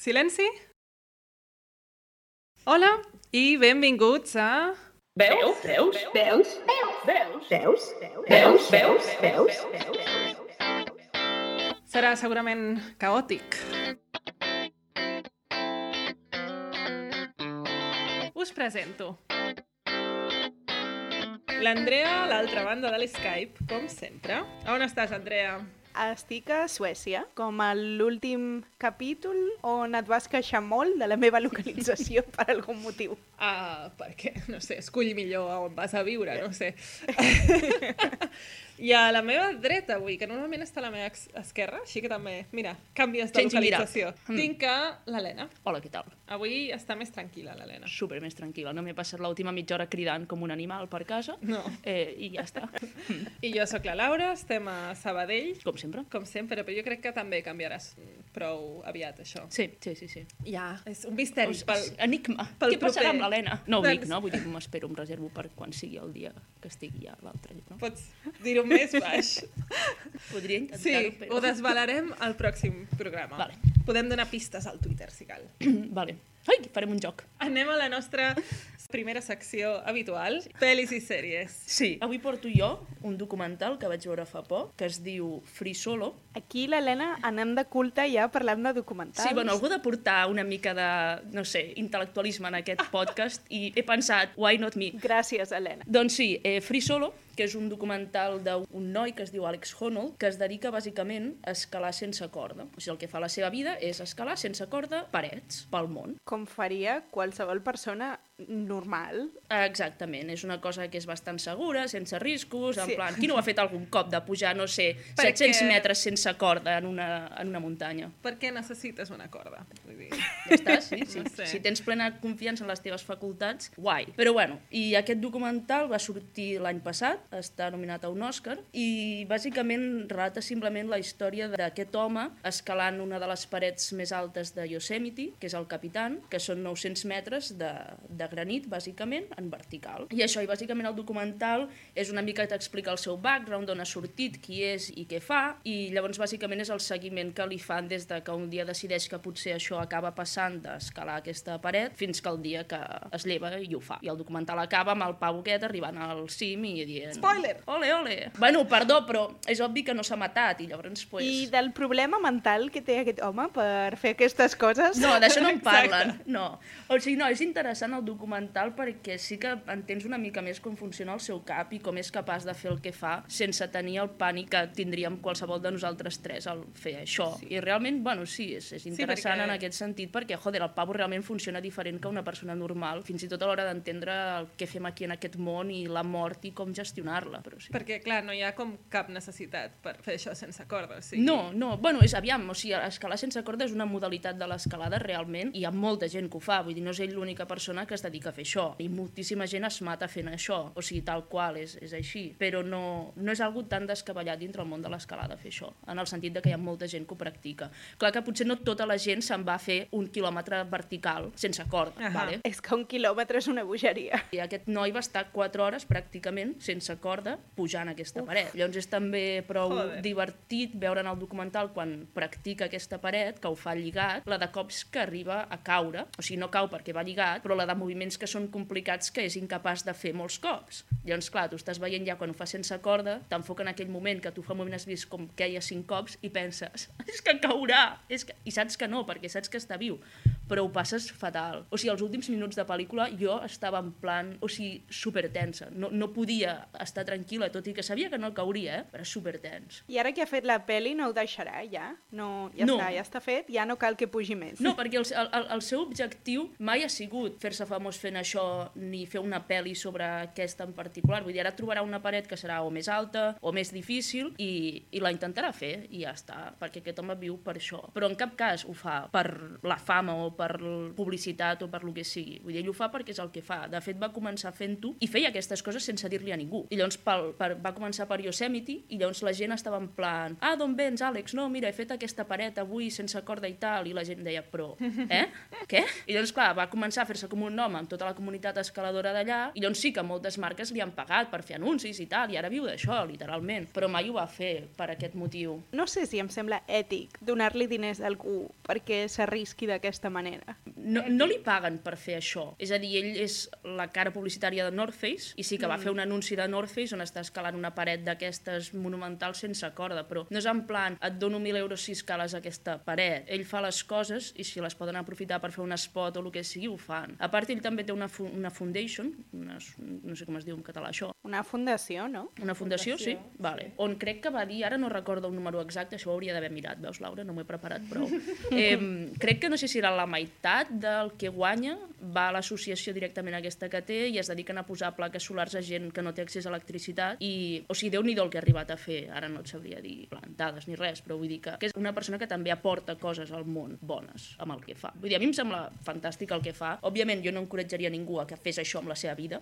Silenci? Hola i benvinguts a... Veus? Serà segurament caòtic. Us presento. L'Andrea a l'altra banda de l'Skype, com sempre. On estàs, Andrea? Estic a Suècia, com a l'últim capítol on et vas queixar molt de la meva localització per algun motiu. Perquè, no sé, escull millor on vas a viure, no sé. I a la meva dreta avui, que normalment està a la meva esquerra, així que també, mira, canvies de localització. Tinc l'Helena. Hola, què tal? Avui està més tranquil·la, l'Helena. Super més tranquil·la. No m'he passat l'última mitja hora cridant com un animal per casa. No. I ja està. I jo sóc la Laura, estem a Sabadell. Com sempre. Com sempre, però jo crec que també canviaràs prou aviat, això. Sí. Ja, és un misteri. Enigma. Què passarà amb l'Helena? No ho dic, no? Vull dir, m'espero, em reservo per quan sigui el dia que estigui ja l'altre. No? Pots dir-ho més baix. Podria intentar-ho, Sí, però... ho desvelarem al pròxim programa. Vale. Podem donar pistes al Twitter, si cal. Vale. Ai, farem un joc. Anem a la nostra primera secció habitual, pel·lis i sèries. Sí, avui porto jo un documental que vaig veure fa poc, que es diu Free Solo. Aquí, l'Helena, anem de culte ja parlant de documentals. Sí, bueno, algú ha de portar una mica de, no sé, intel·lectualisme en aquest podcast i he pensat, why not me? Gràcies, Helena. Doncs sí, Free Solo, que és un documental d'un noi que es diu Alex Honnold, que es dedica bàsicament a escalar sense corda. O sigui, el que fa la seva vida és escalar sense corda parets pel món. Com faria qualsevol persona normal. Exactament, és una cosa que és bastant segura, sense riscos, en plan, qui no ho ha fet algun cop de pujar, no sé, 700 metres sense corda en una muntanya? Per què necessites una corda? Vull dir... Ja està, sí. No sé. Si tens plena confiança en les teves facultats, guai. Però bueno, i aquest documental va sortir l'any passat, està nominat a un Òscar, i bàsicament relata simplement la història d'aquest home escalant una de les parets més altes de Yosemite, que és el Capitan, que són 900 metres de granit, bàsicament, en vertical. I això, i bàsicament el documental és una mica t'explica el seu background, d'on ha sortit, qui és i què fa, i llavors bàsicament és el seguiment que li fan des de que un dia decideix que potser això acaba passant d'escalar aquesta paret fins que el dia que es lleva i ho fa. I el documental acaba amb el pavo aquest arribant al cim i dient... Spoiler! Ole! Bueno, perdó, però és obvi que no s'ha matat i llavors... Pues... I del problema mental que té aquest home per fer aquestes coses? No, d'això no en parlen, no. O sigui, no, és interessant el documental perquè sí que entens una mica més com funciona el seu cap i com és capaç de fer el que fa sense tenir el pànic que tindríem qualsevol de nosaltres tres al fer això. Sí. I realment, bueno, sí, és interessant en aquest sentit perquè, joder, el pavo realment funciona diferent que una persona normal, fins i tot a l'hora d'entendre el que fem aquí en aquest món i la mort i com gestionar-la. Però sí. Perquè, clar, no hi ha com cap necessitat per fer això sense corda. O sigui... No, bueno, és aviam, o sigui, escalar sense corda és una modalitat de l'escalada realment i hi ha molta gent que ho fa, vull dir, no és ell l'única persona que es dedica a fer això. I moltíssima gent es mata fent això, o sigui, tal qual, és així. Però no és algo tan descabellat dintre el món de l'escalada fer això, en el sentit de que hi ha molta gent que ho practica. Clar que potser no tota la gent se'n va a fer 1 quilòmetre vertical sense corda, vale? És que 1 quilòmetre és una bogeria. I aquest noi va estar 4 hores pràcticament sense corda pujant aquesta paret. Llavors és també prou divertit veure en el documental quan practica aquesta paret, que ho fa lligat, la de cops que arriba a caure, o sigui, no cau perquè va lligat, però la de moviments que són complicats que és incapaç de fer molts cops. Llavors, clar, tu estàs veient ja quan ho fa sense corda, t'enfoca en aquell moment que tu fa un moment has vist com queia 5 cops i penses, és que caurà! I saps que no, perquè saps que està viu, però ho passes fatal. O sigui, els últims minuts de pel·lícula jo estava en plan, o sigui, supertensa. No podia estar tranquil·la, tot i que sabia que no cauria, però supertens. I ara que ha fet la peli no ho deixarà, ja? No, ja està fet, ja no cal que pugi més. No, perquè el seu objectiu mai ha sigut fer-se famós fent això ni fer una pel·li sobre aquesta en particular. Vull dir, ara trobarà una paret que serà o més alta o més difícil i la intentarà fer i ja està, perquè aquest home viu per això. Però en cap cas ho fa per la fama o per publicitat o per lo que sigui. Vull dir, ell ho fa perquè és el que fa. De fet, va començar fent-ho i feia aquestes coses sense dir-li a ningú. I llavors va començar per Yosemite i llavors la gent estava en plan d'on vens, Àlex? No, mira, he fet aquesta paret avui sense corda i tal. I la gent deia, però, què? I llavors, clar, va començar a fer-se com un nom amb tota la comunitat escaladora d'allà i llavors sí que moltes marques li han pagat per fer anuncis i tal, i ara viu d'això, literalment. Però mai ho va fer per aquest motiu. No sé si em sembla ètic donar-li diners a algú perquè s'arrisqui d'aquesta manera. No li paguen per fer això. És a dir, ell és la cara publicitària de North Face i sí que va fer un anunci de North Face on està escalant una paret d'aquestes monumentals sense corda, però no és en plan, et dono 1.000 euros si escales aquesta paret. Ell fa les coses i si les poden aprofitar per fer un spot o el que sigui, ho fan. A part, ell també té una foundation, no sé com es diu en català això. Una fundació, no? Una fundació, sí. Vale. On crec que va dir, ara no recordo un número exacte, això ho hauria d'haver mirat, veus, Laura? No m'ho he preparat prou. Crec que no sé si era la meitat del que guanya, va a l'associació directament aquesta que té i es dediquen a posar plaques solars a gent que no té accés a electricitat i, o sigui, Déu-n'hi-do el que ha arribat a fer, ara no et sabria dir plantades ni res, però vull dir que és una persona que també aporta coses al món bones amb el que fa. Vull dir, a mi em sembla fantàstic el que fa. Òbviament, jo no encoratjaria ningú a que fes això amb la seva vida,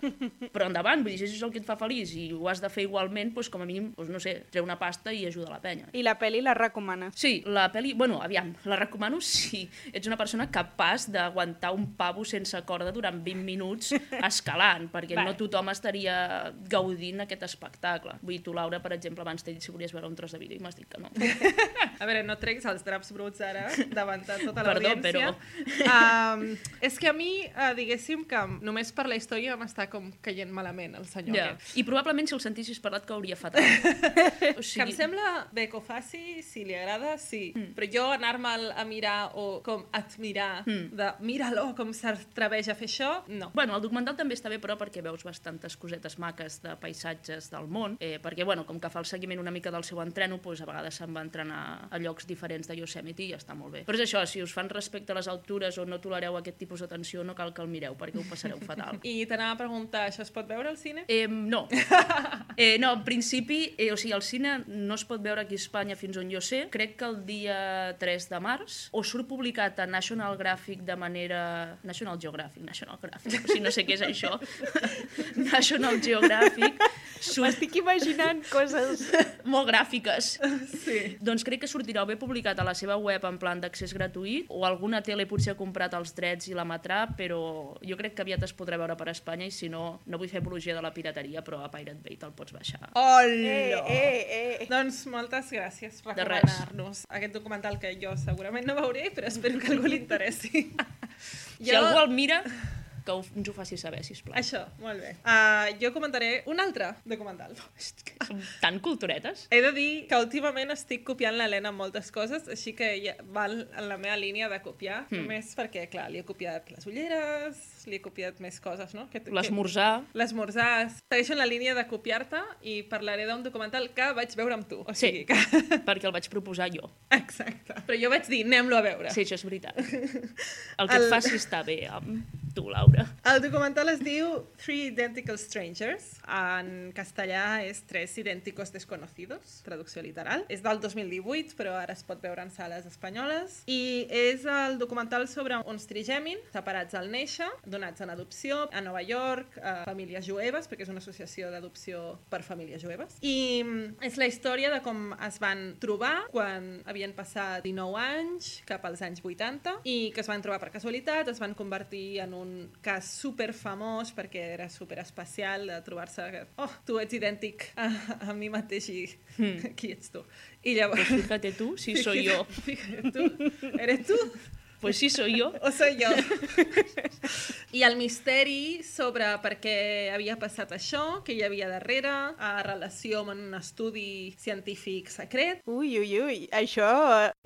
però endavant, vull dir, si això és el que et fa feliç i ho has de fer igualment, doncs com a mínim, doncs no sé, treu una pasta i ajuda la penya. I la pel·li la recomanes? Sí, la pel·li, bueno, aviam, la recomano si ets una persona capaç d'aguantar un pavo sense corda durant 20 minuts escalant, perquè no tothom estaria gaudint aquest espectacle. Vull dir, tu, Laura, per exemple, abans t'he dit si volies veure un tros de vídeo i m'has dit que no. A veure, no treguis els draps bruts ara davant de tota l'audiència. Però... és que a mi, diguéssim que només per la història m'està com caient malament el senyor aquest. I probablement si el sentissis parlat cauria fatal. Que em sembla bé que ho faci, si li agrada, sí. Però jo anar-me'l a mirar o com admirar de mira-lo com s'atreveix a fer això, no. Bueno, el documental també està bé, però perquè veus bastantes cosetes maques de paisatges del món, perquè, bueno, com que fa el seguiment una mica del seu entreno, doncs a vegades se'n va entrenar a llocs diferents de Yosemite i està molt bé. Però és això, si us fan respecte a les altures o no tolereu aquest tipus d'atenció, no cal que el mireu, perquè ho passareu fatal. I t'anava a preguntar, això es pot veure al cine? No. No, en principi, o sigui, el cine no es pot veure aquí a Espanya fins on jo sé. Crec que el dia 3 de març, o surt publicat a National Geographic de manera... National Geographic, o sigui, no sé què és això. National Geographic. M'estic imaginant coses molt gràfiques. Sí. Doncs crec que sortirà o bé publicat a la seva web en plan d'accés gratuït, o alguna tele potser ha comprat els drets i l'emetrà, però jo crec que aviat es podrà veure per Espanya i si no, no vull fer apologia de la pirateria, però a Pirate Bay te'l pots baixar. Hola! Doncs moltes gràcies per recomanar-nos aquest documental que jo segurament no veuré, però espero que algú li interessi. Si algú el mira, que ens ho faci saber, sisplau. Això, molt bé. Jo comentaré un altre documental. Som tan culturetes. He de dir que últimament estic copiant l'Helena en moltes coses, així que ja val en la meva línia de copiar, només perquè, clar, li he copiat les ulleres, li he copiat més coses, no? L'esmorzar. L'esmorzar. Segueixo en la línia de copiar-te i parlaré d'un documental que vaig veure amb tu. O sigui que... perquè el vaig proposar jo. Exacte. Però jo vaig dir, anem-lo a veure. Sí, això és veritat. El que et faci està bé amb tu, Laura. El documental es diu Three Identical Strangers. En castellà és Tres Idénticos Desconocidos, traducció literal. És del 2018, però ara es pot veure en sales espanyoles. I és el documental sobre uns trigèmins separats al néixer, donats en adopció a Nova York, a famílies jueves, perquè és una associació d'adopció per famílies jueves. I és la història de com es van trobar quan havien passat 19 anys, cap als anys 80, i que es van trobar per casualitat, es van convertir en un cas superfamós perquè era superespecial de trobar-se que, tu ets idèntic a mi mateix i qui ets tu? I llavors... Pues fíjate tú, si soy yo. Fíjate tú, ¿eres tú? Pues sí, soy yo. O soy yo. I el misteri sobre per què havia passat això, què hi havia darrere, a relació amb un estudi científic secret. Ui, això...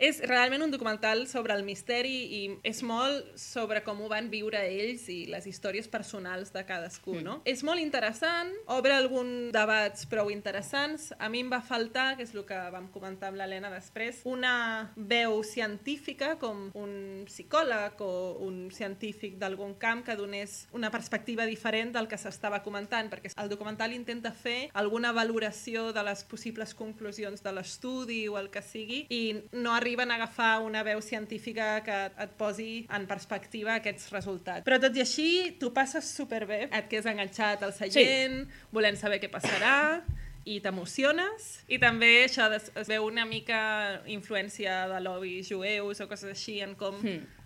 És realment un documental sobre el misteri i és molt sobre com ho van viure ells i les històries personals de cadascú, no? És molt interessant, obre alguns debats prou interessants. A mi em va faltar, que és el que vam comentar amb l'Helena després, una veu científica com un psicòleg o un científic d'algun camp que donés una perspectiva diferent del que s'estava comentant, perquè el documental intenta fer alguna valoració de les possibles conclusions de l'estudi o el que sigui, i no arriben a agafar una veu científica que et posi en perspectiva aquests resultats. Però tot i així, tu passes superbé, et quedes enganxat al seient, volent saber què passarà, i t'emociones, i també això es veu una mica influència de lobbies jueus o coses així en com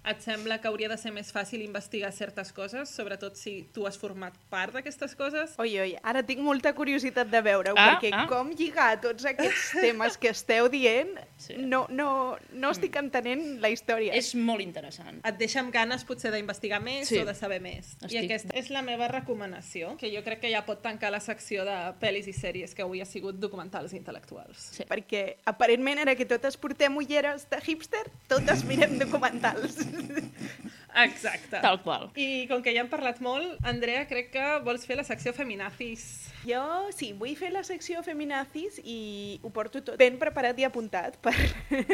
et sembla que hauria de ser més fàcil investigar certes coses, sobretot si tu has format part d'aquestes coses. Oi, ara tinc molta curiositat de veure-ho, perquè com lligar tots aquests temes que esteu dient, no estic entenent la història. És molt interessant. Et deixa amb ganes potser d'investigar més o de saber més. I aquesta és la meva recomanació, que jo crec que ja pot tancar la secció de pel·lis i sèries que avui ha sigut documentals intel·lectuals. Sí. Perquè aparentment ara que totes portem ulleres de hipster, totes mirem documentals. Exacte. Tal qual. I com que ja hem parlat molt, Andrea, crec que vols fer la secció Feminazis. Jo sí, vull fer la secció Feminazis i ho porto tot ben preparat i apuntat per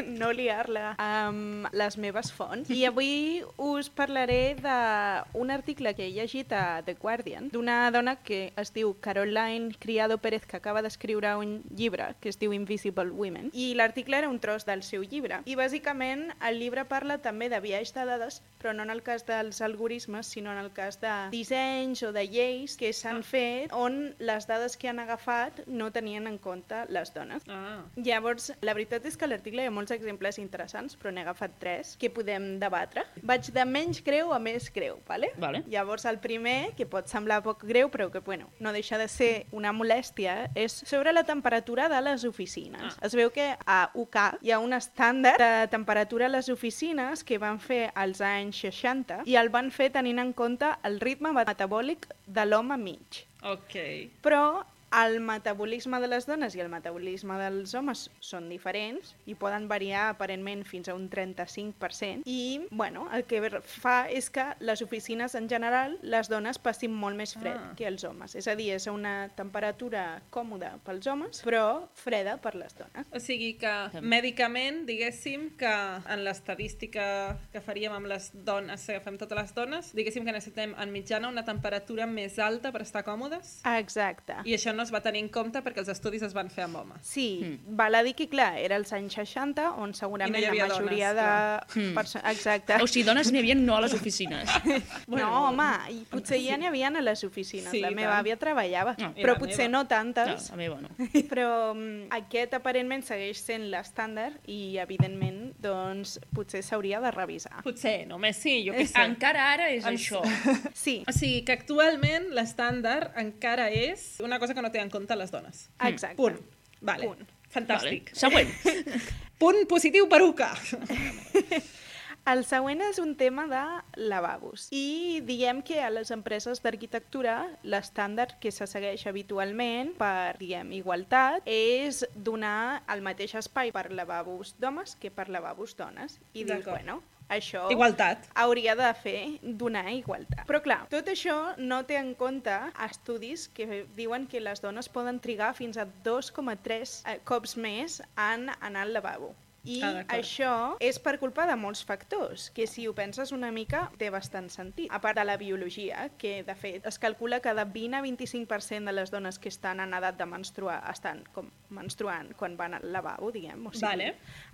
no liar-la amb les meves fonts. I avui us parlaré d'un article que he llegit a The Guardian d'una dona que es diu Caroline Criado Pérez, que acaba d'escriure un llibre que es diu Invisible Women, i l'article era un tros del seu llibre. I bàsicament el llibre parla també de biaix de dades, però no en el cas dels algoritmes, sinó en el cas de dissenys o de lleis que s'han fet on les dades que han agafat no tenien en compte les dones. Llavors, la veritat és que a l'article hi ha molts exemples interessants, però n'he agafat 3 que podem debatre. Vaig de menys greu a més greu, ¿vale? Llavors, el primer, que pot semblar poc greu, però que no deixa de ser una molèstia, és sobre la temperatura de les oficines. Es veu que a UK hi ha un estàndard de temperatura a les oficines que van fer als anys 60 i el van fer tenint en compte el ritme metabòlic de l'home mig. Però el metabolisme de les dones i el metabolisme dels homes són diferents i poden variar aparentment fins a un 35%. I, el que fa és que les oficines en general, les dones passin molt més fred que els homes. És a dir, és una temperatura còmoda pels homes, però freda per les dones. O sigui que, mèdicament, diguéssim que en l'estadística que faríem amb les dones, si agafem totes les dones, diguéssim que necessitem en mitjana una temperatura més alta per estar còmodes? Exacte. I això no es va tenir en compte perquè els estudis es van fer amb homes. Sí, val a dir que, clar, era als anys 60, on segurament la majoria de persones... Exacte. O sigui, dones n'hi havia no a les oficines. No, home, i potser ja n'hi havia a les oficines. La meva àvia treballava, però potser no tantes. La meva no. Però aquest aparentment segueix sent l'estàndard i, evidentment, doncs, potser s'hauria de revisar. Potser, només sí, jo què sé. Encara ara és això. Sí. O sigui, que actualment l'estàndard encara és una cosa que no té en compte les dones. Exacte. Punt. Vale. Punt. Fantàstic. Següent. Punt positiu per UCA. El següent és un tema de lavabos. I diguem que a les empreses d'arquitectura l'estàndard que se segueix habitualment per, igualtat és donar el mateix espai per lavabos d'homes que per lavabos dones. I dius, això hauria de donar igualtat. Però clar, tot això no té en compte estudis que diuen que les dones poden trigar fins a 2,3 cops més en anar al lavabo. I això és per culpa de molts factors, que si ho penses una mica té bastant sentit. A part de la biologia, que de fet es calcula que de 20 a 25% de les dones que estan en edat de menstruar estan menstruant quan van al lavabo, diguem, o sigui,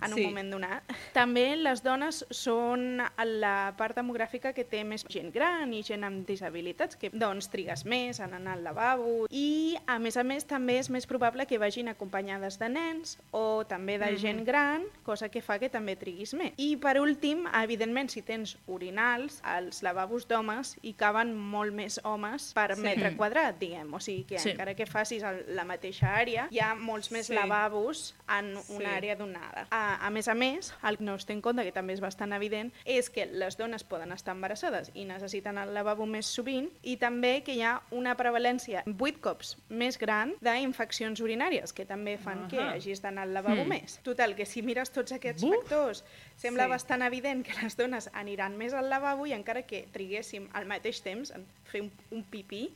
en un moment donat. També les dones són la part demogràfica que té més gent gran i gent amb disabilitats, que doncs trigues més en anar al lavabo, i a més també és més probable que vagin acompanyades de nens o també de gent gran, cosa que fa que també triguis més. I per últim, evidentment, si tens orinals, els lavabos d'homes hi caben molt més homes per metre quadrat, diguem. O sigui que encara que facis la mateixa àrea, hi ha molts més lavabos en una àrea donada. A més, el que no es té en compte, que també és bastant evident, és que les dones poden estar embarassades i necessiten el lavabo més sovint, i també que hi ha una prevalència 8 cops més gran d'infeccions urinàries, que també fan que hagis d'anar al lavabo més. Total, que si mires tots aquests factors, sembla bastant evident que les dones aniran més al lavabo i encara que triguéssim al mateix temps en fer un pipí,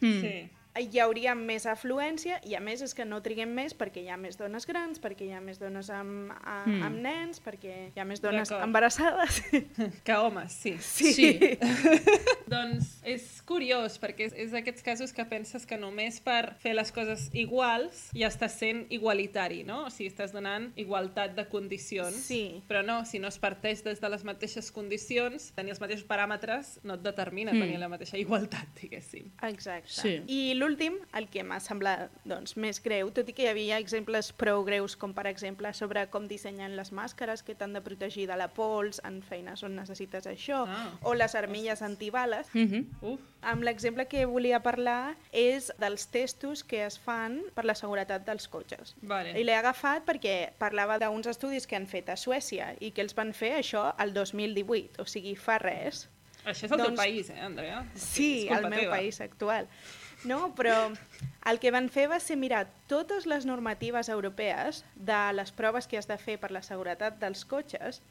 hi hauria més afluència i a més és que no triguem més perquè hi ha més dones grans, perquè hi ha més dones amb nens, perquè hi ha més dones embarassades. Que homes, sí. Sí. Doncs és curiós perquè és d'aquests casos que penses que només per fer les coses iguals ja estàs sent igualitari, no? O sigui, estàs donant igualtat de condicions. Sí. Però no, si no es parteix des de les mateixes condicions, tenir els mateixos paràmetres no et determina tenir la mateixa igualtat, diguéssim. Exacte. Sí. I l'últim, el que m'ha semblat doncs, més greu, tot i que hi havia exemples prou greus, com per exemple sobre com dissenyen les màscares que t'han de protegir de la pols en feines on necessites això, o les armilles antibales. Amb l'exemple que volia parlar és dels testos que es fan per la seguretat dels cotxes. Vale. I l'he agafat perquè parlava d'uns estudis que han fet a Suècia i que els van fer això el 2018, o sigui, fa res. Això és el teu país, Andrea? Sí, el meu país actual. No, però el que van fer va ser mirar totes les normatives europees de les proves que has de fer per la seguretat dels cotxes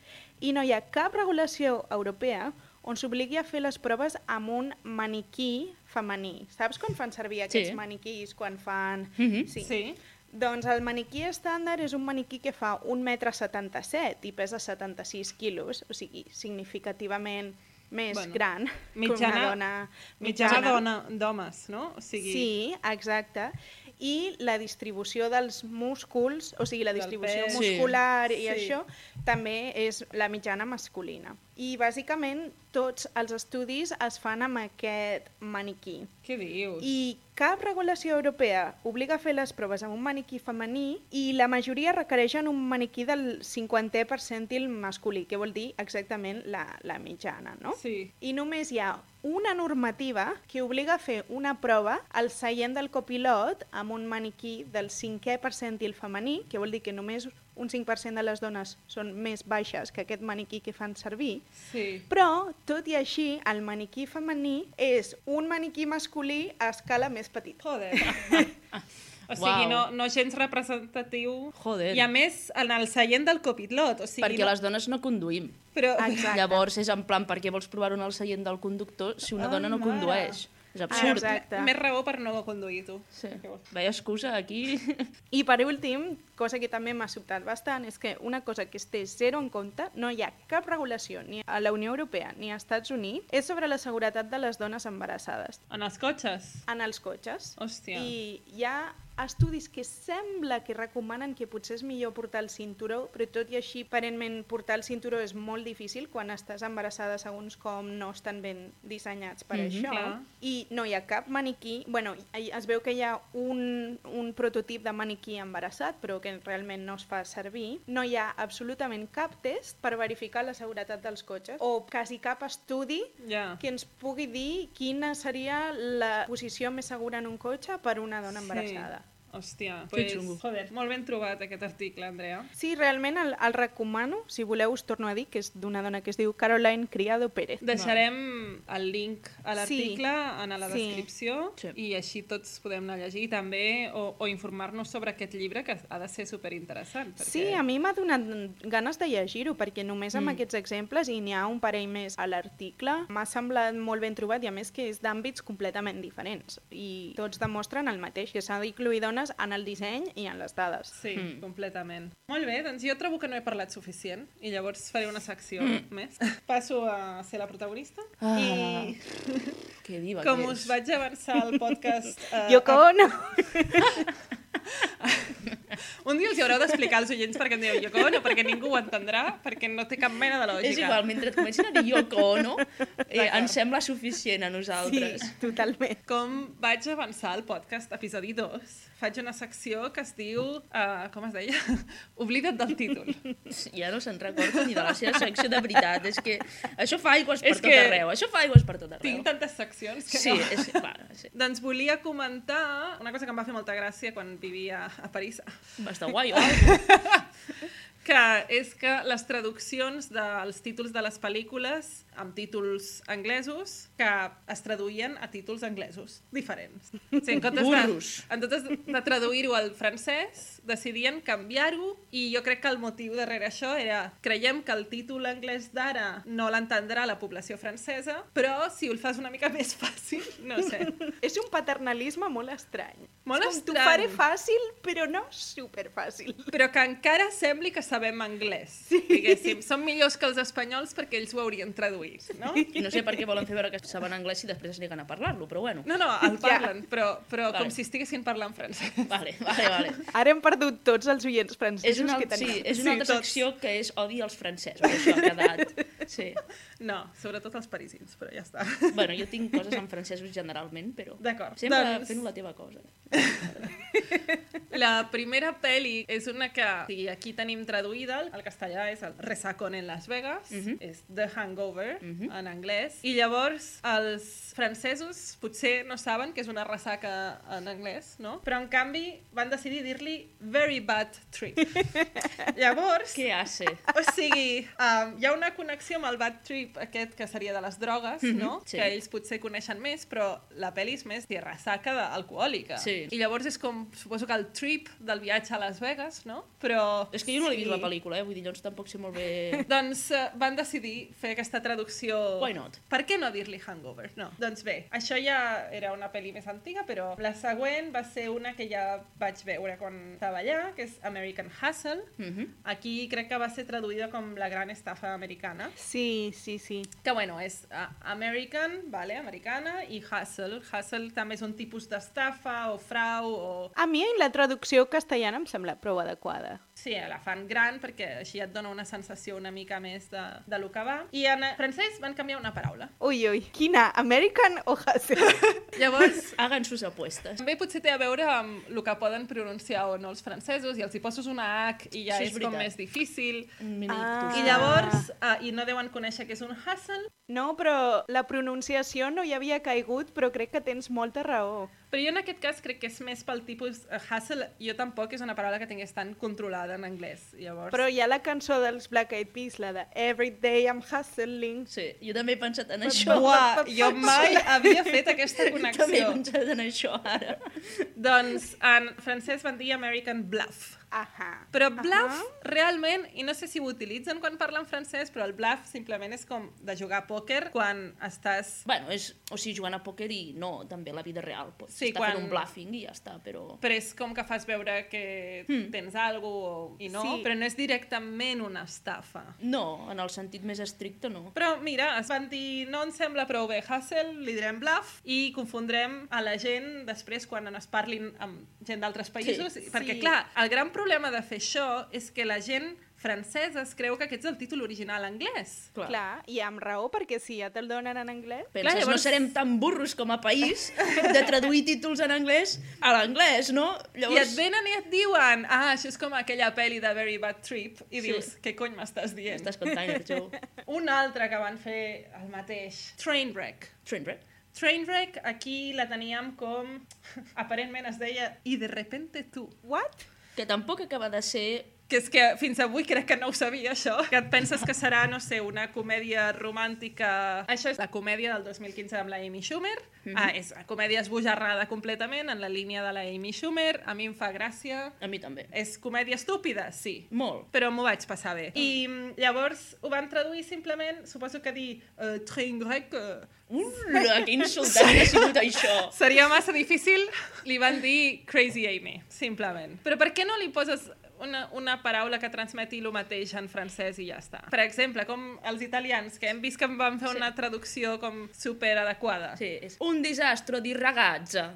i no hi ha cap regulació europea on s'obligui a fer les proves amb un maniquí femení. Saps quan fan servir aquests maniquís quan fan... Sí. Doncs el maniquí estàndard és un maniquí que fa 1,77 m i pesa 76 quilos, o sigui, significativament més gran que una dona mitjana d'homes, no? O sigui... Sí, exacte. I la distribució dels músculs, o sigui, la distribució muscular i això, també és la mitjana masculina. I bàsicament tots els estudis es fan amb aquest maniquí. Què dius? I cap regulació europea obliga a fer les proves amb un maniquí femení i la majoria requereixen un maniquí del 50è percentil masculí, que vol dir exactament la mitjana, no? Sí. I només hi ha una normativa que obliga a fer una prova al seient del copilot amb un maniquí del 5è percentil femení, que vol dir que només un 5% de les dones són més baixes que aquest maniquí que fan servir, però, tot i així, el maniquí femení és un maniquí masculí a escala més petita. Joder. O sigui, no gens representatiu. Joder. I a més, en el seient del copilot. O sigui, perquè les dones no conduïm. Però... Llavors és en plan, per què vols provar-ho en el seient del conductor si una dona no condueix? És absurd. Exacte. Més raó per no conduir, tu. Sí. Veia excusa aquí. I per últim, cosa que també m'ha sobtat bastant, és que una cosa que es té zero en compte, no hi ha cap regulació ni a la Unió Europea ni als Estats Units, és sobre la seguretat de les dones embarassades. En els cotxes? En els cotxes. Hòstia. I hi ha estudis que sembla que recomanen que potser és millor portar el cinturó, però tot i així, aparentment, portar el cinturó és molt difícil quan estàs embarassada, segons com no estan ben dissenyats per això. Clar. I no hi ha cap maniquí... Bueno, es veu que hi ha un prototip de maniquí embarassat, però que realment no es fa servir. No hi ha absolutament cap test per verificar la seguretat dels cotxes, o quasi cap estudi que ens pugui dir quina seria la posició més segura en un cotxe per una dona embarassada. Hòstia, joder, molt ben trobat aquest article, Andrea. Sí, realment el recomano, si voleu us torno a dir, que és d'una dona que es diu Caroline Criado Pérez. Deixarem el link a l'article en la descripció i així tots podem anar a llegir també o informar-nos sobre aquest llibre que ha de ser superinteressant. Perquè... Sí, a mi m'ha donat ganes de llegir-ho perquè només amb aquests exemples, i n'hi ha un parell més a l'article, m'ha semblat molt ben trobat i a més que és d'àmbits completament diferents i tots demostren el mateix, que s'ha d'incluir dones en el disseny i en les dades. Sí, completament. Molt bé, doncs jo trobo que no he parlat suficient i llavors faré una secció més. Passo a ser la protagonista i que diva com que us vaig avançar al podcast... Yoko Ono! Un dia els hi haureu d'explicar als oients perquè em dieu Yoko Ono, perquè ningú ho entendrà, perquè no té cap mena de lògica. És igual, mentre et comencin a dir Yoko Ono, ens sembla suficient a nosaltres. Sí, totalment. Com vaig avançar al podcast episodi 2, faig una secció que es diu, com es deia? Oblida't del títol. Ja no se'n recorda ni de la seva secció de veritat, és que això fa aigües per tot arreu, això fa aigües per tot arreu. Tinc tantes seccions que sí, no. És clar, sí. Doncs volia comentar una cosa que em va fer molta gràcia quan vivia a París. Va estar guai, que és que les traduccions dels títols de les pel·lícules amb títols anglesos que es traduïen a títols anglesos diferents. O sigui, en comptes de traduir-ho al francès, decidien canviar-ho i jo crec que el motiu darrere això era creiem que el títol anglès d'ara no l'entendrà la població francesa, però si ho fas una mica més fàcil, no sé. És un paternalisme molt estrany. Molt és com, estrany. T'ho faré fàcil, però no superfàcil. Però que encara sembli que sabem anglès, diguéssim. Som millors que els espanyols perquè ells ho haurien traduït, no? I no sé per què volen fer veure que saben anglès i després es neguen a parlar-lo, però bueno. No, el parlen, però vale. Com si estiguessin parlant francès. Vale. Ara hem perdut tots els oients francesos que tenim. Sí, és una altra secció que és odi als francesos, això ha quedat. Sí. No, sobretot els parisins, però ja està. Bueno, jo tinc coses en francesos generalment, però... D'acord. Sempre fent la teva cosa. La primera pel·li és una que aquí tenim traduïda, al castellà és el Resacón en Las Vegas, és The Hangover en anglès, i llavors els francesos potser no saben que és una ressaca en anglès, no? Però en canvi van decidir dir-li Very Bad Trip. Llavors... Què hace? O sigui, hi ha una connexió amb el bad trip aquest que seria de les drogues, no? Sí. Que ells potser coneixen més, però la pel·li és més de ressaca alcohòlica. Sí. I llavors és com, suposo que el trip del viatge a Las Vegas, no? Però... És que jo no l'he vist la pel·lícula, vull dir, llavors tampoc sé molt bé... Doncs van decidir fer aquesta traducció... Why not? Per què no dir-li Hangover? No. Doncs bé, això ja era una pel·li més antiga, però la següent va ser una que ja vaig veure quan estava allà, que és American Hustle. Aquí crec que va ser traduïda com La gran estafa americana. Sí. Que bueno, és American, vale, americana, i Hustle. Hustle també és un tipus d'estafa o frau o... A mi la traducció castellana em sembla prou adequada. Sí, la fan gran perquè així et dona una sensació una mica més de lo que va. I en francès van canviar una paraula. Ui, quina? American o Hustle? Llavors... Hagan sus apuestes. També potser té a veure amb el que poden pronunciar o no els francesos, i els hi poses una H i ja sí, és com més difícil. I I llavors, i no deuen conèixer què és un hustle. No, però la pronunciació no hi havia caigut, però crec que tens molta raó. Però jo en aquest cas crec que és més pel tipus hustle. Jo tampoc és una paraula que tingués tan controlada en anglès. Llavors... Però hi ha la cançó dels Black Eyed Peas, la de Every Day I'm Hustling. Sí, jo també he pensat en això. Buah, jo mai havia fet aquesta connexió. També he pensat en això ara. Doncs en francès van dir American Bluff. Però bluff, realment, i no sé si ho utilitzen quan parlen francès, però el bluff simplement és com de jugar a pòquer quan estàs... Bueno, o sigui, jugant a pòquer i no, també la vida real. Pots estar fent un bluffing i ja està, però... Però és com que fas veure que tens alguna cosa i no, però no és directament una estafa. No, en el sentit més estricte no. Però mira, es van dir, no ens sembla prou bé hustle, li direm bluff i confondrem a la gent després quan es parlin amb gent d'altres països, perquè clar, el gran problema de fer això és que la gent francesa es creu que aquest és el títol original anglès. Clar, i amb raó, perquè si ja te'l donen en anglès... Penses, llavors... no serem tan burros com a país de traduir títols en anglès a l'anglès, no? Llavors... I et venen i et diuen, això és com aquella pel·li de Very Bad Trip, i dius, què cony m'estàs dient? Estàs contant, Joe. Un altre que van fer el mateix, Trainwreck. Trainwreck, aquí la teníem com... Aparentment es deia I de repente tu. What? Que tampoc acaba de ser... Que és que fins avui crec que no ho sabia, això. Que et penses que serà, no sé, una comèdia romàntica... Això és la comèdia del 2015 amb la Amy Schumer. És una comèdia esbojarrada completament, en la línia de la Amy Schumer. A mi em fa gràcia. A mi també. És comèdia estúpida? Sí. Molt. Però m'ho vaig passar bé. I llavors ho van traduir simplement, suposo que dir Trainwreck... Ula, que insultant ha sigut això. Seria massa difícil. Li van dir Crazy Amy, simplement. Però per què no li poses una paraula que transmeti el mateix en francès i ja està? Per exemple, com els italians, que hem vist que van fer una traducció com superadequada. Sí, és un disastro di ragazza.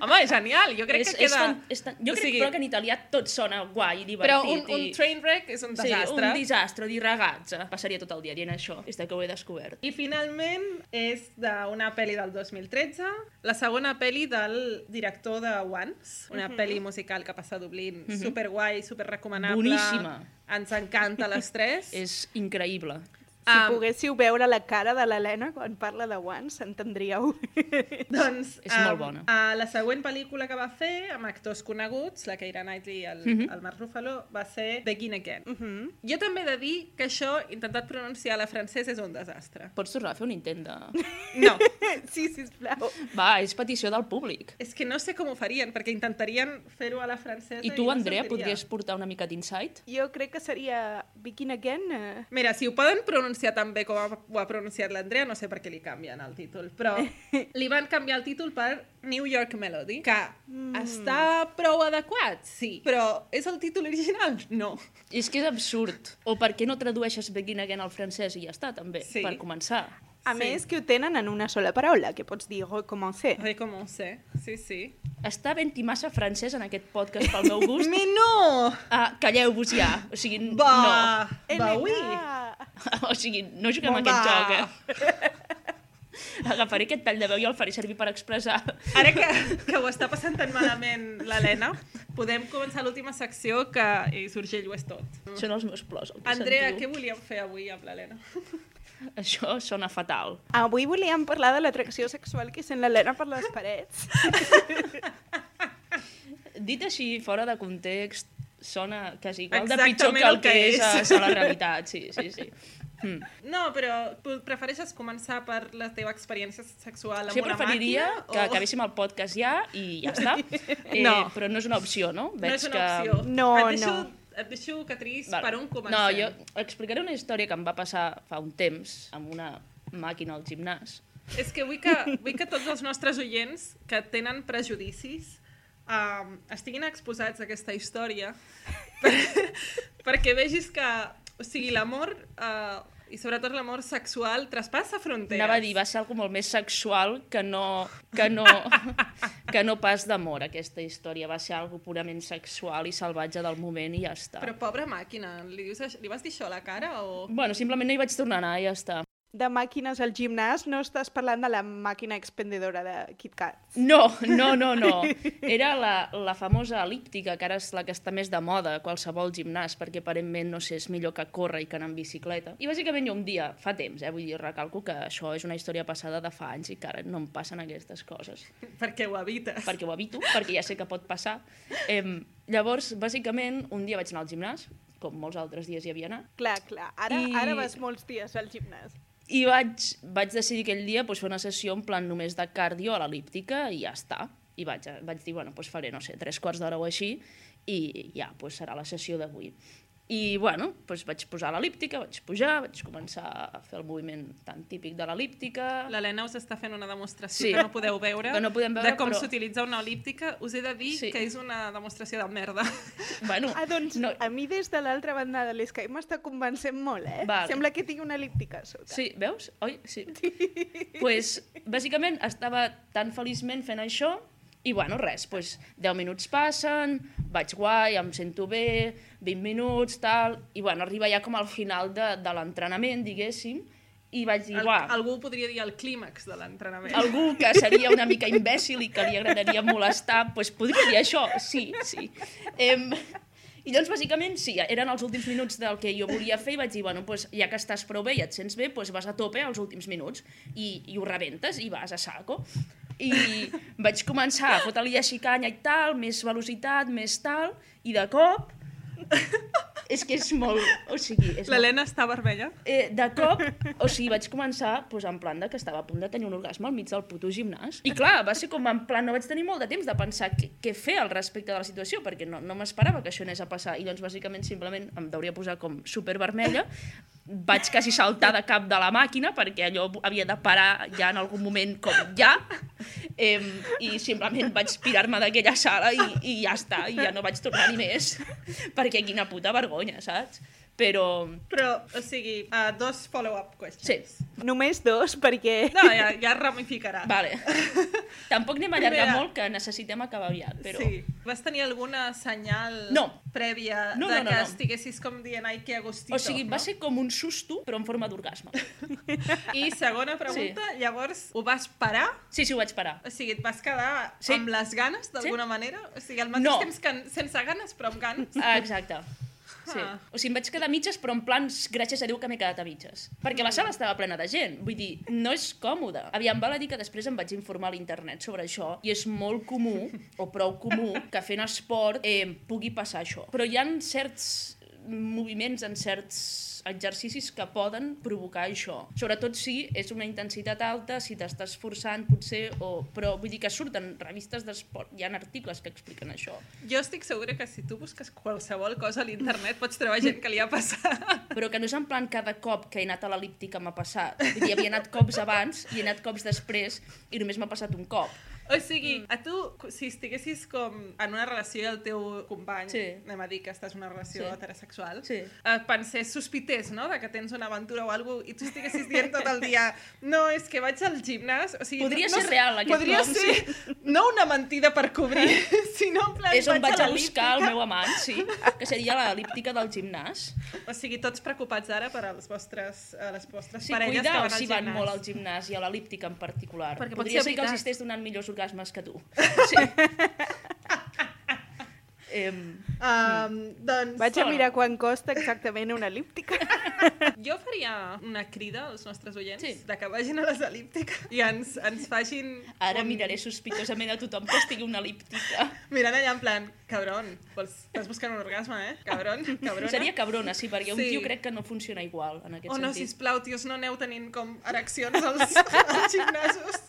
Home, és genial, jo crec que queda... Jo crec però que en italià tot sona guai i divertit. Però un trainwreck és un desastre. Sí, un disastro di ragazza. Passaria tot el dia dient això, des que ho he descobert. I finalment és d'una pel·li del 2013, la segona pel·li del director de Once, una pel·li musical que passa a Dublín, superguai, superrecomanable. Boníssima. Ens encanta a les tres. És increïble. Si poguéssiu veure la cara de l'Helena quan parla de One, s'entendríeu. Doncs És molt bona. La següent pel·lícula que va fer, amb actors coneguts, la Keira Knightley i el Mark Ruffalo, va ser Begin Again. Jo també he de dir que això, intentat pronunciar a la francesa, és un desastre. Pots tornar a fer un intent de... No. Sí, sisplau. Va, és petició del públic. És que no sé com ho farien, perquè intentarien fer-ho a la francesa I tu, no Andrea, sortiria. podries portar una mica d'insight? Jo crec que seria Begin Again. Mira, si ho poden pronunciar tan bé com ho ha pronunciat l'Andrea, no sé per què li canvien el títol, però li van canviar el títol per New York Melody, que està prou adequat, sí, però és el títol original? No. És que és absurd. O per què no tradueixes Begin Again al francès i ja està, també, Sí. per començar? A més que ho tenen en una sola paraula, que pots dir recommencer. Recommencer, sí, sí. Està ben-hi massa francès en aquest podcast pel meu gust. Mais no! Calleu-vos ja. O sigui, Va, oui. Elena! no. O sigui, no juguem a aquest joc, Agafaré aquest tall de veu i el faré servir per expressar. Ara que ho està passant tan malament l'Helena, podem començar l'última secció que Urgell ho és tot. Són els meus plors. El que Andrea, sentiu. què volíem fer avui amb l'Helena? Això sona fatal. Avui volíem parlar de l'atracció sexual que sent l'Helena per les parets. Dit així, fora de context, sona quasi igual de Exactament pitjor que el el que que és. és a la realitat. Sí. No, però prefereixes començar per la teva experiència sexual amb Jo una preferiria màquina? que acabéssim el podcast ja i ja està. No. Però no és una opció, no? No és una opció. No, Et deixo, Catrice, Val. per on comencem. No, jo explicaré una història que em va passar fa un temps amb una màquina al gimnàs. És que vull que tots els nostres oients que tenen prejudicis estiguin exposats a aquesta història perquè vegis que, o sigui, l'amor i sobretot l'amor sexual traspassa fronteres. Anava a dir, va ser algo molt més sexual que no pas d'amor, aquesta història. Va ser algo purament sexual i salvatge del moment i ja està. Però pobra màquina, li vas dir això a la cara o...? Bueno, simplement no hi vaig tornar a anar i ja està. De màquines al gimnàs, no estàs parlant de la màquina expendedora de KitKats. No. Era la famosa elíptica, que ara és la que està més de moda a qualsevol gimnàs, perquè aparentment, no sé, és millor que córrer i que anar en bicicleta. I bàsicament jo un dia, fa temps, vull dir, recalco que això és una història passada de fa anys i que ara no em passen aquestes coses. Perquè ho evites. Perquè ho evito, perquè ja sé que pot passar. Llavors, bàsicament, un dia vaig anar al gimnàs, com molts altres dies hi havia anat, Clar. Ara vas molts dies al gimnàs. i vaig decidir aquell dia fer una sessió en plan només de cardio a l'elíptica i ja està. I vaig dir, bueno, faré, no sé, 3/4 d'hora o així i ja, serà la sessió d'avui. I, bueno, vaig posar l'elíptica, vaig pujar, vaig començar a fer el moviment tan típic de l'elíptica. L'Helena us està fent una demostració Sí. que no podeu veure, Que no podem veure, de com però- s'utilitza una elíptica. Us he de dir Sí. que és una demostració de merda. Bueno, Doncs no, a mi des de l'altra banda de l'Skype m'està convencent molt, Vale. Sembla que tinc una elíptica a sota. sí, veus? Oi? Sí. Bàsicament estava tan feliçment fent això i, bueno, res, 10 minuts passen, vaig guai, em sento bé, 20 minuts, tal, i, bueno, arriba ja com al final de l'entrenament, diguéssim, i vaig dir, uah, Algú podria dir el clímax de l'entrenament. algú que seria una mica imbècil i que li agradaria molestar, podria dir això, sí. I llavors, bàsicament, sí, eren els últims minuts del que jo volia fer i vaig dir, bueno, ja que estàs prou bé i et sents bé, vas a tope als últims minuts i ho rebentes i vas a saco. I vaig començar a fotre-li així canya i tal, més velocitat, més tal, i de cop... És que és molt... O sigui, és L'Helena està vermella? de cop, o sigui, vaig començar en plan que estava a punt de tenir un orgasme al mig del puto gimnàs. I clar, va ser com en plan, no vaig tenir molt de temps de pensar què fer al respecte de la situació, perquè no m'esperava que això anés a passar. I doncs, bàsicament, simplement em deuria posar com supervermella, vaig quasi saltar de cap de la màquina, perquè allò havia de parar ja en algun moment com ja, i simplement vaig pirar-me d'aquella sala i ja està, i ja no vaig tornar-hi més, perquè quina puta vergonya, saps? Però, o sigui, 2 follow-up questions. sí, Només 2, perquè... No, ja ramificarà. vale. Tampoc anem a allargar Primera. molt, que necessitem acabar aviat, però... Sí. Vas tenir alguna senyal No. prèvia No, de no, que no. estiguessis com dient ai, que agustito? O sigui, va ser com un susto, però en forma d'orgasme. I segona pregunta, llavors, ho vas parar? Sí, ho vaig parar. O sigui, et vas quedar Sí. amb les ganes, d'alguna manera? O sigui, al mateix No. temps que sense ganes, però amb ganes? Exacte. Sí. O sigui, em vaig quedar a mitges, però en plan, gràcies a Déu que m'he quedat a mitges. Perquè la sala estava plena de gent. Vull dir, no és còmode. Aviam, val a dir que després em vaig informar a l'internet sobre això i és molt comú, o prou comú, que fent esport pugui passar això. Però hi ha certs moviments, en certs exercicis que poden provocar això. Sobretot si és una intensitat alta, si t'estàs forçant potser, però vull dir que surten revistes d'esport, hi ha articles que expliquen això. Jo estic segura que si tu busques qualsevol cosa a l'internet pots trobar gent que li ha passat. Però que no és en plan cada cop que he anat a l'el·líptica m'ha passat. Vull dir, havia anat cops abans i he anat cops després i només m'ha passat un cop. O sigui, a tu, si estiguessis com en una relació i el teu company, anem a dir que estàs en una relació heterosexual, pensés, sospités, no?, de que tens una aventura o alguna cosa, i tu estiguessis dient tot el dia no, és que vaig al gimnàs... O sigui, podria ser real, aquest podria nom, ser no una mentida per cobrir, sinó en plan, és on vaig a buscar el l'el·líptica. meu amant, sí, que seria l'el·líptica del gimnàs. O sigui, tots preocupats ara per a les vostres Sí, parelles que cuida van al si van gimnàs. molt al gimnàs i a l'el·líptica en particular. Perquè pot podria ser ser que veritat. els estigués donant millors orgasmes que tu. Sí. Doncs... Vaig a mirar quan costa exactament una el·líptica. Jo faria una crida als nostres oients Sí. que vagin a les el·líptiques i ens facin... Ara miraré sospitosament a tothom que estigui una el·líptica. Mirant allà en plan, cabron, estàs buscant un orgasme, cabron, cabrona. Seria cabrona, sí, perquè un Sí. tio crec que no funciona igual, en aquest Oh no, sentit. sisplau, tios, no aneu tenint com ereccions als gimnasos.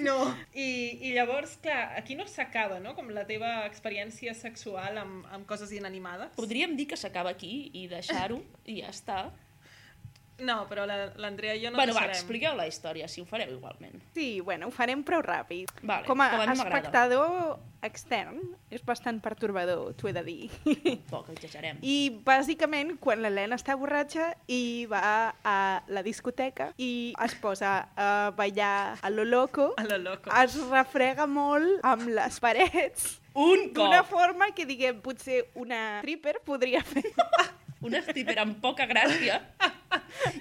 No. I llavors, clar, aquí no s'acaba, no?, com la teva experiència sexual amb coses inanimades. Podríem dir que s'acaba aquí i deixar-ho i ja està. No, però l'Andrea i jo no Bueno, va, deixarem. expliqueu la història, si ho fareu igualment. Sí, bueno, ho farem prou ràpid. Vale, Com a mi m'agrada. espectador extern, és bastant pertorbador, t'ho he de dir. Poc, exagerem. I bàsicament, quan l'Helena està borratxa i va a la discoteca i es posa a ballar a lo loco, A lo loco. es refrega molt amb les parets Un d'una cop! forma que, diguem, potser una stripper podria fer. Una stripper amb poca gràcia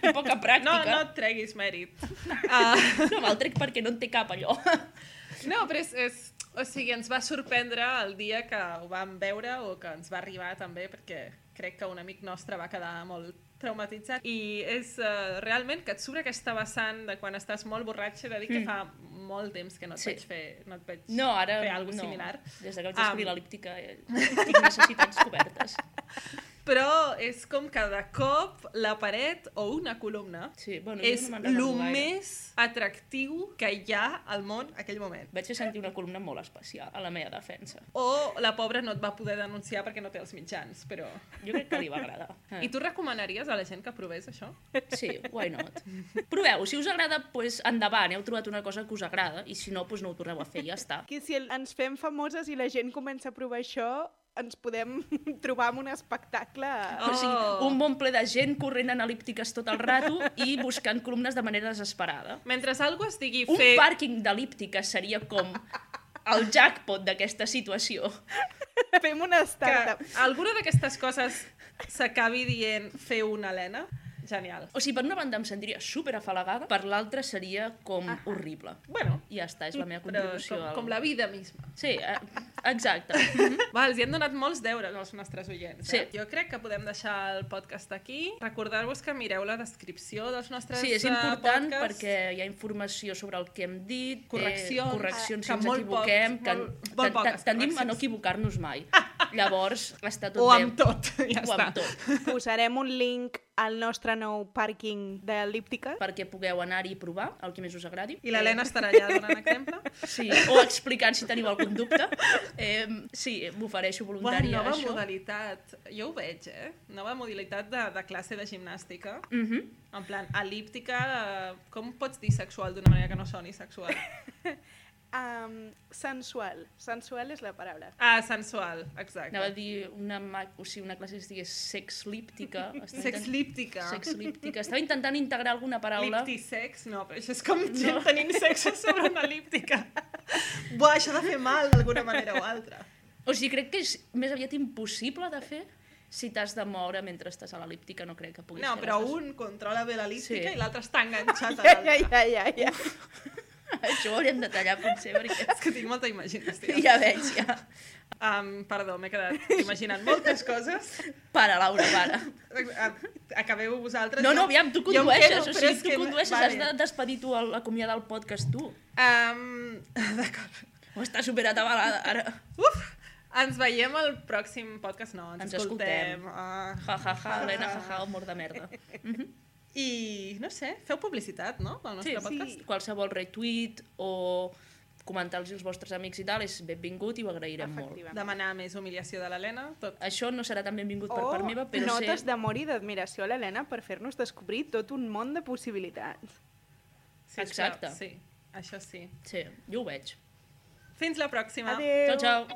i poca No, pràctica. no et treguis mèrit. No me'l trec perquè no en té cap, allò. No, però o sigui, ens va sorprendre el dia que ho vam veure o que ens va arribar també, perquè crec que un amic nostre va quedar molt traumatitzat. I és realment que et surt aquesta vessant de quan estàs molt borratxa, he de dir que fa molt temps que no et Sí. vaig fer, no et vaig No, ara fer alguna no. similar. Des que vaig descobrir l'el·líptica tinc necessitats cobertes. Però és com que de cop la paret o una columna Sí, bueno, és jo no me'n el recordo gaire. més atractiu que hi ha al món aquell moment. Vaig fer sentir una columna molt especial a la meva defensa. O la pobra no et va poder denunciar perquè no té els mitjans, però... Jo crec que li va agradar. I tu recomanaries a la gent que provés això? Sí, why not? Proveu, si us agrada, doncs endavant, heu trobat una cosa que us agrada, i si no, doncs no ho torneu a fer, ja està. Que si ens fem famoses i la gent comença a provar això, ens podem trobar amb un espectacle... O sigui, un bon ple de gent corrent en el·líptiques tot el rato i buscant columnes de manera desesperada. Mentre algú es digui Un fer... pàrquing d'el·líptiques seria com el jackpot d'aquesta situació. Fem una que startup. alguna d'aquestes coses s'acabi dient fer una Helena, genial. O sigui, per una banda em sentiria super afalagada, per l'altra seria com horrible. Bueno, I ja està, és la meva però contribució. com la vida misma. Sí, exacte. Va, els hi han donat molts deures als nostres oients. Sí. Jo crec que podem deixar el podcast aquí. Recordar-vos que mireu la descripció dels nostres Sí, és important podcasts. perquè hi ha informació sobre el que hem dit, que correccions si ens molt equivoquem, molt poques tendim a correccions. no equivocar-nos mai. Llavors, està tot O bé. amb tot, ja O està. amb tot, Posarem un link al nostre nou pàrquing d'el·líptica. perquè pugueu anar-hi i provar el que més us agradi. I l'Helena estarà allà donant exemple. Sí, o explicant si teniu algun dubte. Sí, m'ofereixo voluntària a nova això. modalitat. Jo ho veig, Nova modalitat de classe de gimnàstica. En plan, el·líptica, com pots dir sexual d'una manera que no soni sexual? Sensual. Sensual és la paraula. Ah, sensual, exacte. Anava a dir una classe que es digués sexlíptica. Sexlíptica. Sexlíptica. Estava intentant integrar alguna paraula. Liptisex? No, però això és com gent tenint sexe sobre una el·líptica. Buah, això ha de fer mal d'alguna manera o altra. O sigui, crec que és més aviat impossible de fer si t'has de moure mentre estàs a l'el·líptica, no crec que puguis No, fer però les dues. un controla bé l'el·líptica Sí. i l'altre està enganxat a Ja, l'altre. ja. Això ho hauríem de tallar, potser, perquè És que tinc molta imaginació. ja veig, ja. Perdó, m'he quedat imaginant moltes coses. Para, Laura, para. Acabeu vosaltres. No, aviam, tu condueixes. O sigui, tu condueixes, has vale. de despedir tu, acomiadar el podcast tu. D'acord. O està superatabalada, ara. Ens veiem al pròxim podcast. No, ens escoltem. Helena, humor de merda. I, no sé, feu publicitat, no?, pel nostre podcast. Sí, qualsevol retweet o comentar-los als vostres amics i tal és benvingut i ho agrairem molt. Demanar més humiliació de l'Helena, tot. Això no serà tan benvingut per part meva, però notes d'amor i d'admiració a l'Helena per fer-nos descobrir tot un món de possibilitats. Sí, exacte. Sí, això sí. Sí, jo ho veig. Fins la pròxima. Adéu. Ciao, ciao.